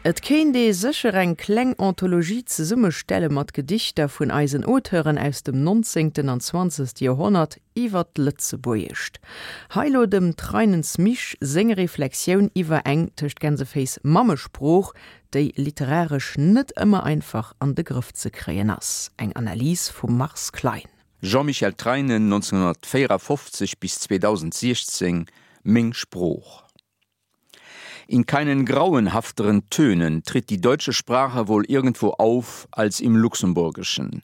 Et kéint ee sécher eng kleng Anthologie zesummestelle mat Gedichter vun eisen Auteuren aus dem nonzéngten an zwanzegste Joerhonnert iwwer d'Lëtzebuergescht. Hei lo dem Treinens Misch seng Reflexioun iwwer eng, tëscht Gänseféiss, Mammesprooch, déi literaresch net ëmmer einfach an de Grëff ze kréien ass. Eng Analys vum Mars Klein. Jean-Michel Treinen, 1954 bis 2016, Meng Sprooch. In keinen grauenhafteren Tönen tritt die deutsche Sprache wohl irgendwo auf als im Luxemburgischen.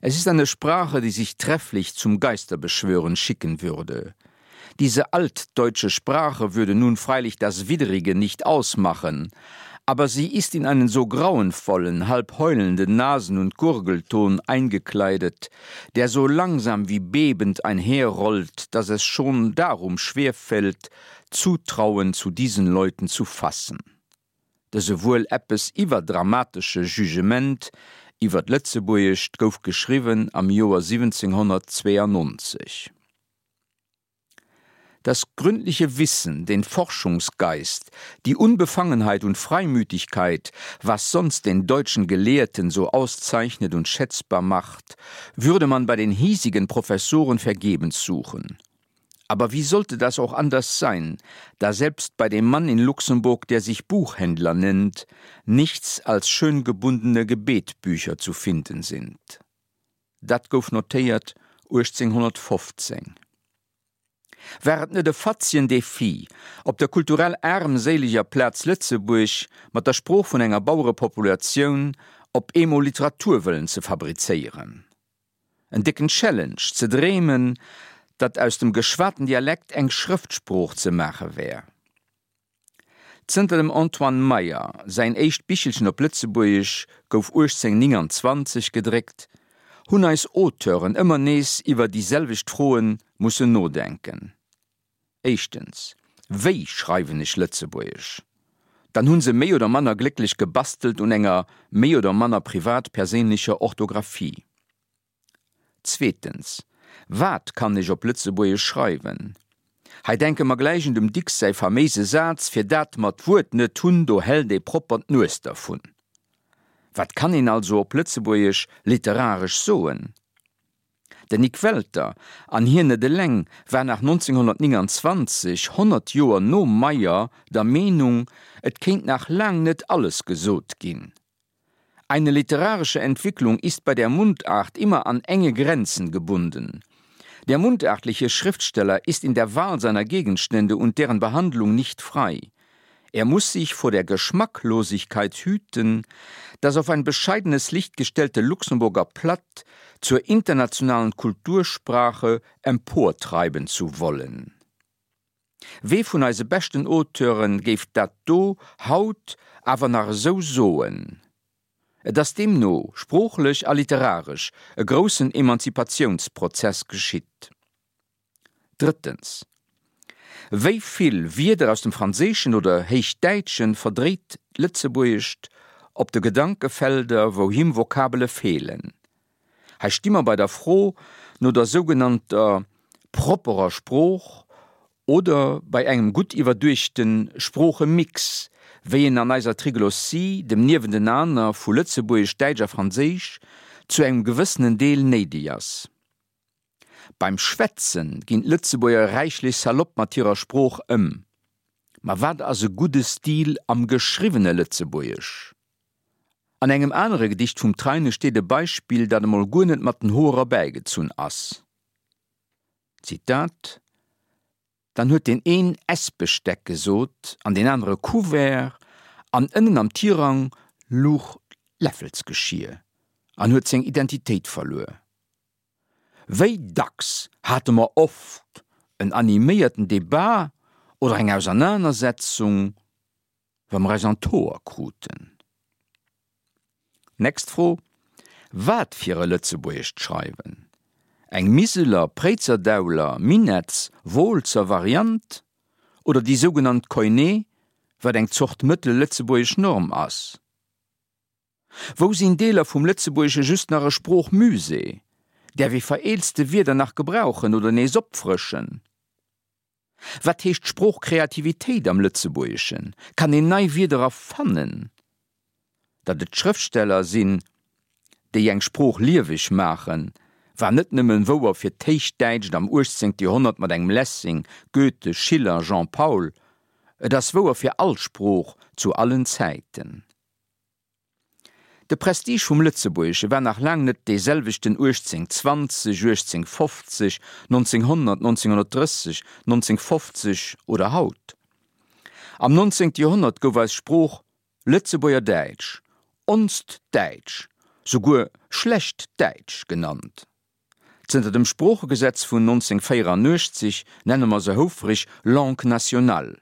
Es ist eine Sprache, die sich trefflich zum Geisterbeschwören schicken würde. Diese altdeutsche Sprache würde nun freilich das Widrige nicht ausmachen, aber sie ist in einen so grauenvollen, halb heulenden Nasen- und Gurgelton eingekleidet, der so langsam wie bebend einherrollt, dass es schon darum schwerfällt, Zutrauen zu diesen Leuten zu fassen. Dëse wuel eppes iwwerdramatesche Jugement iwwer d'Lëtzebuergescht gouf geschriwwen am Joer 1792. Das gründliche Wissen, den Forschungsgeist, die Unbefangenheit und Freimütigkeit, was sonst den deutschen Gelehrten so auszeichnet und schätzbar macht, würde man bei den hiesigen Professoren vergebens suchen. Aber wie sollte das auch anders sein, da selbst bei dem Mann in Luxemburg, der sich Buchhändler nennt, nichts als schön gebundene Gebetbücher zu finden sind. Dat gouf notéiert 1815. War et net e fatzien Défi, op der kulturell aarmséileger Plaz Lëtzebuerg mat der Sprooch vun enger Bauerepopulatioun op eemol Literatur wëllen ze fabrizéieren? En décken Challenge, ze dreemen, datt aus dem geschwaten Dialekt eng Schrëftsprooch ze maache wär. Zënter dem Antoine Meyer säin éischt Bichelchen op Lëtzebuergesch gouf 1829 gedréckt, hunn eis Auteuren ëmmer nees iwwer déi selwecht Froe mussen nodenken. Éischtens, Wéi schreiwen ech Lëtzebuergesch? Dann hu se méi oder manner glécklech gebastelt un enger méi oder manner privat-perséinlecher Orthographie. Zweetens, Wat kann ech op Lëtzebuergesch schreiwen? Hei denke mer gläich un dem Dicks säi faméise Saz, Fir dat mer d'Wuert net hunn, do hält ee propper d'Nues dervun. Wat kann een also op Lëtzebuergesch literaresch soen? Den Nik Welter, an hien net eleng, war nach 1929, 100 Joer nom Meyer, der Meenung, et kéint nach laang net alles gesot ginn. Eine literarische Entwicklung ist bei der Mundart immer an enge Grenzen gebunden. Der mundartliche Schriftsteller ist in der Wahl seiner Gegenstände und deren Behandlung nicht frei. Er muss sich vor der Geschmacklosigkeit hüten, das auf ein bescheidenes Licht gestellte Luxemburger Platt zur internationalen Kultursprache emportreiben zu wollen. Wee vun eise beschten Auteure géif dat do haut awer nach esou soen? Et ass deemno sproochlech a literaresch e groussen Emanzipatiounsprozess geschitt. Drëttens, Wéi vill Wierder aus dem Franséischen oder Héichdäitschen verdréit d'Lëtzebuergescht op de Gedankefelder, wou him Vokabele feelen? Hei sti mer bei der Fro no der sougenannter propperer Sprooch oder bei engem gutt iwwerduechte Sproochemix, wéi en an eiser Triglossie, dem Niewentenaner vu Lëtzebuergesch, Däitsch a Franséisch, zu engem gewëssenen Deel néideg ass. Beim Schwätze ginn d'Lëtzebuerger räichlech salopp mat hirer Sprooch ëm. Ma wat ass e gudde Stil am geschriwwene Lëtzebuergesch? An engem anere Gedicht vum Treine steet e Beispill, dat emol guer net mat den Hoer erbäigezunn ass, Zitat, Dann huet deen een Essbesteck gesot an deen anere Couvert an ënnen am Tirang luch d'Läffelsgeschier an huet seng Identitéit verluer. Wéi dacks hate mer oft en animéierten Debat oder eng Ausernanersetzung wa mer eis an d'Hoer kruten. Next Fro, Wat fir e Lëtzebuergescht schreiwen? Eng Miseler, Préizerdauler, Minetts, Wooltzer Variant oder déi sougenannt Koiné, wat eng Zort mëttel-lëtzebuergesch Norm ass? Wou sinn Deeler vum Lëtzebuergesche just nach e Sproochmusée? Däerf ee vereelzte Wierder nach gebrauchen oder nees opfrëschen? Wat heescht Sproochkreativitéit am Lëtzebuergeschen? Kann een nei Wierder erfannen? Datt et d'Schrëftsteller sinn, déi eng Sprooch lieweg maachen, war net nëmmen wouer fir d'Héichdäitscht am 18. Joerhonnert mat engem Lessing, Goethe, Schiller, Jean Paul, et ass wouer fir all Sprooch zu allen Zäiten. De Prestige vum Lëtzebuergesche war nach laang net dee selwechten 1820, 1850, 1900, 1930, 1950 oder haut. Am 19. Joerhonnert gouf eis Sprooch Lëtzebuerger Däitsch, onst Däitsch, souguer schlecht Däitsch genannt. Zënter dem Sproochegesetz vun 1984 nenne mer se houfreg Langue nationale.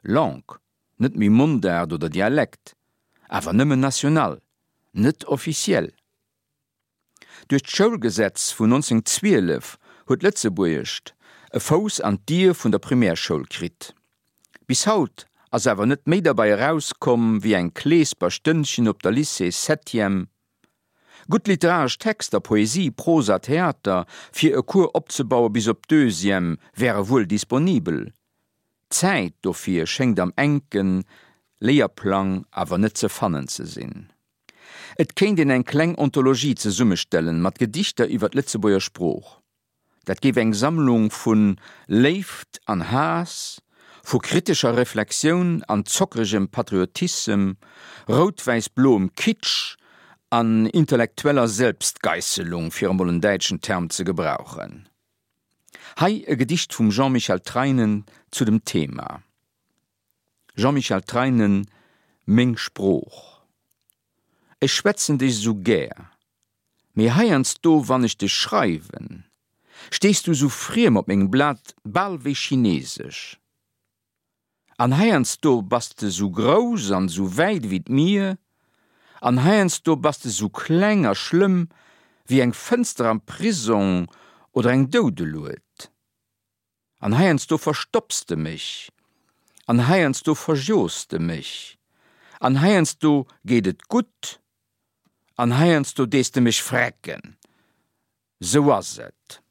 Langue, net méi Mondaart oder Dialekt, awer nëmmen national, net officiel. Duerch d'Schoulgesetz vun 1912 huet d'Lëtzebuergescht e Fouss an d'Dier vun der Primärschoul kritt. Bis haut ass awer net méi derbei erauskomm wéi eng Kleesper Stënnchen op der Lycée Septième. Gutt literaresch Texter, Poesie, Prosa, Theater, fir e Cours opzebaue bis op d'Deuxième wäre wuel disponibel. D'Zäit dofir schéngt am enke Léierplang awer net ze fannen ze sinn. Et kéint een eng kleng Ontologie zesummestellen mat Gedichter iwwer d'Lëtzebuerger Sprooch. Dat géif eng Sammlung vu Léift an Haass, vu kritescher Reflexioun an zockeregem Patriotissem, rout-wäiss-bloem Kitsch an intellektueller Selbstgeisselung, fir emol en däitschen Term ze gebrauchen. Hei e Gedicht vum Jean-Michel Treinen zu dem Thema. Jean-Michel Treinen, Meng Sprooch Ech schwätzen dech esou gär, mee heiansdo wann ech dech schreiwen, stees du esou friem op mengem Blat, bal wéi chinesesch. An heiansdo bass de esou grouss an esou wäit ewéi d'Mier, an heiansdo bass de esou kleng a schlëmm wéi eng Fënster am Prisong oder eng Doudelued. An heiansdo verstopps de mech, an heiansdo verjos de mech, an heiansdo geet et gutt, an heiansdo dees de mech frecken. Sou ass et.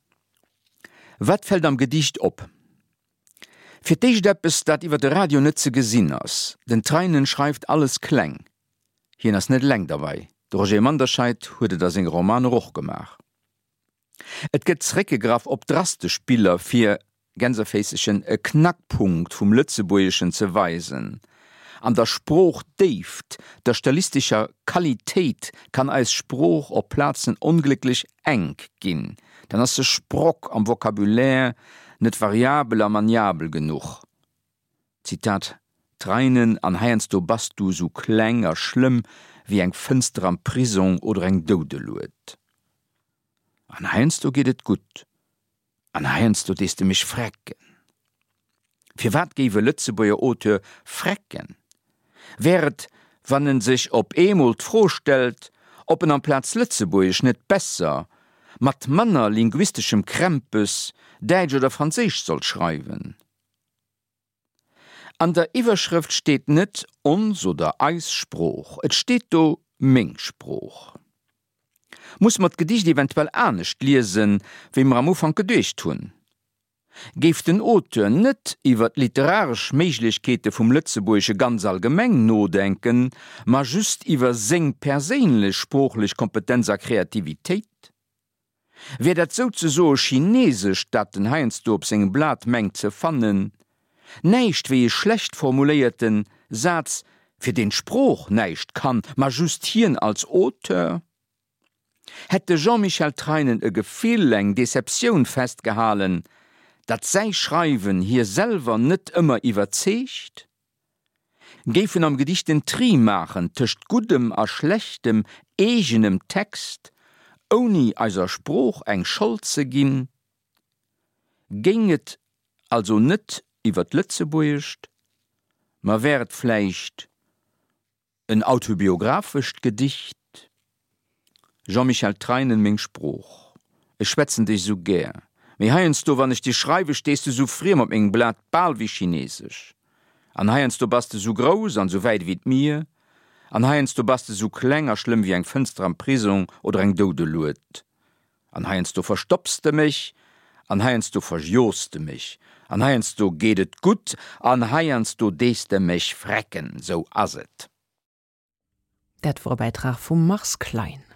Wat fält am Gedicht op? Fir d'éischt eppes, dat iwwer de Radio net ze gesinn ass, Den Treinen schreift alles kleng. Hien ass net eleng derbei, de Roger Manderscheid huet et a senge Romaner och gemaach. Et gëtt zeréckgegraff op drastesch Biller fir, Gänserféissechen, e Knackpunkt vum Lëtzebuergeschen ze weisen. An der Sproochdéift, der stilistescher Qualitéit kann eis Sprooch op Plazen onglécklech enk ginn, dann ass se sprock am Vocabulaire, net variabel a maniabel genuch. Zitat, Treinen an heiansdo bass du sou kleng a schlëmm wéi eng Fënster am Prisong oder eng Doudelued. An heiansdo geet et gutt an heiansdo dees de mech frecken. Firwat géif e Lëtzebuerger Auteur frecken? Wär et, wann en sech op eemol d'Fro stellt, ob en amplaz Lëtzebuergesch net besser, mat manner linguisteschem Krämpes, Däitsch oder Franséisch sollt schreiwen? An der Iwwerschrëft steet net ons oder eis Sprooch, et steet do meng Sprooch. Musse mer d'Gedicht eventuell anescht liesen, wéi mer am Ufank geduecht hunn? Géif den Auteur net iwwer d'literaresch Méiglechkeete vum Lëtzebuergesche ganz allgemeng nodenken, ma just iwwer seng perséinlech sproochlech Kompetenz a Kreativitéit? Wär dat souzesoe Chinesescht, dat en heiansdo op sengem Blat mengt ze fannen, näischt wéi e schlecht formuléierte Saz, fir deen d'Sprooch näischt kann, ma just hien als Auteur? Hätt de Jean-Michel Treinen e Gefill, eng Deceptioun festgehalen, datt säi Schreiwen hie selwer net ëmmer iwwerzeegt? Géif en am Gedicht den Tri maachen tëscht guddem a schlechtem eegenem Text, ouni eiser Sprooch eng Schold ze ginn? Géing et also net iwwer d'Lëtzebuergescht, ma wär et vläicht En autobiographescht Gedicht, Jean-Michel Treinen Meng Sprooch, ech schwätzen dech sou gär, mee heiansdo wann ech dir schreiwe stees de sou friem op mengem Blat, bal wéi chinesesch. An heiansdo bass de sou grouss an sou wäit ewéi d'Mier, an heiansdo bass de sou kleng a schlëmm wéi eng Fënster am Prisong oder eng Doudelued. An heiansdo verstopps de mech. An heiansdo verjos de mech, an heiansdo geet et gutt, an heiansdo dees de mech frecken. Sou ass et. Dat wor e Bäitrag vum Mars Klein.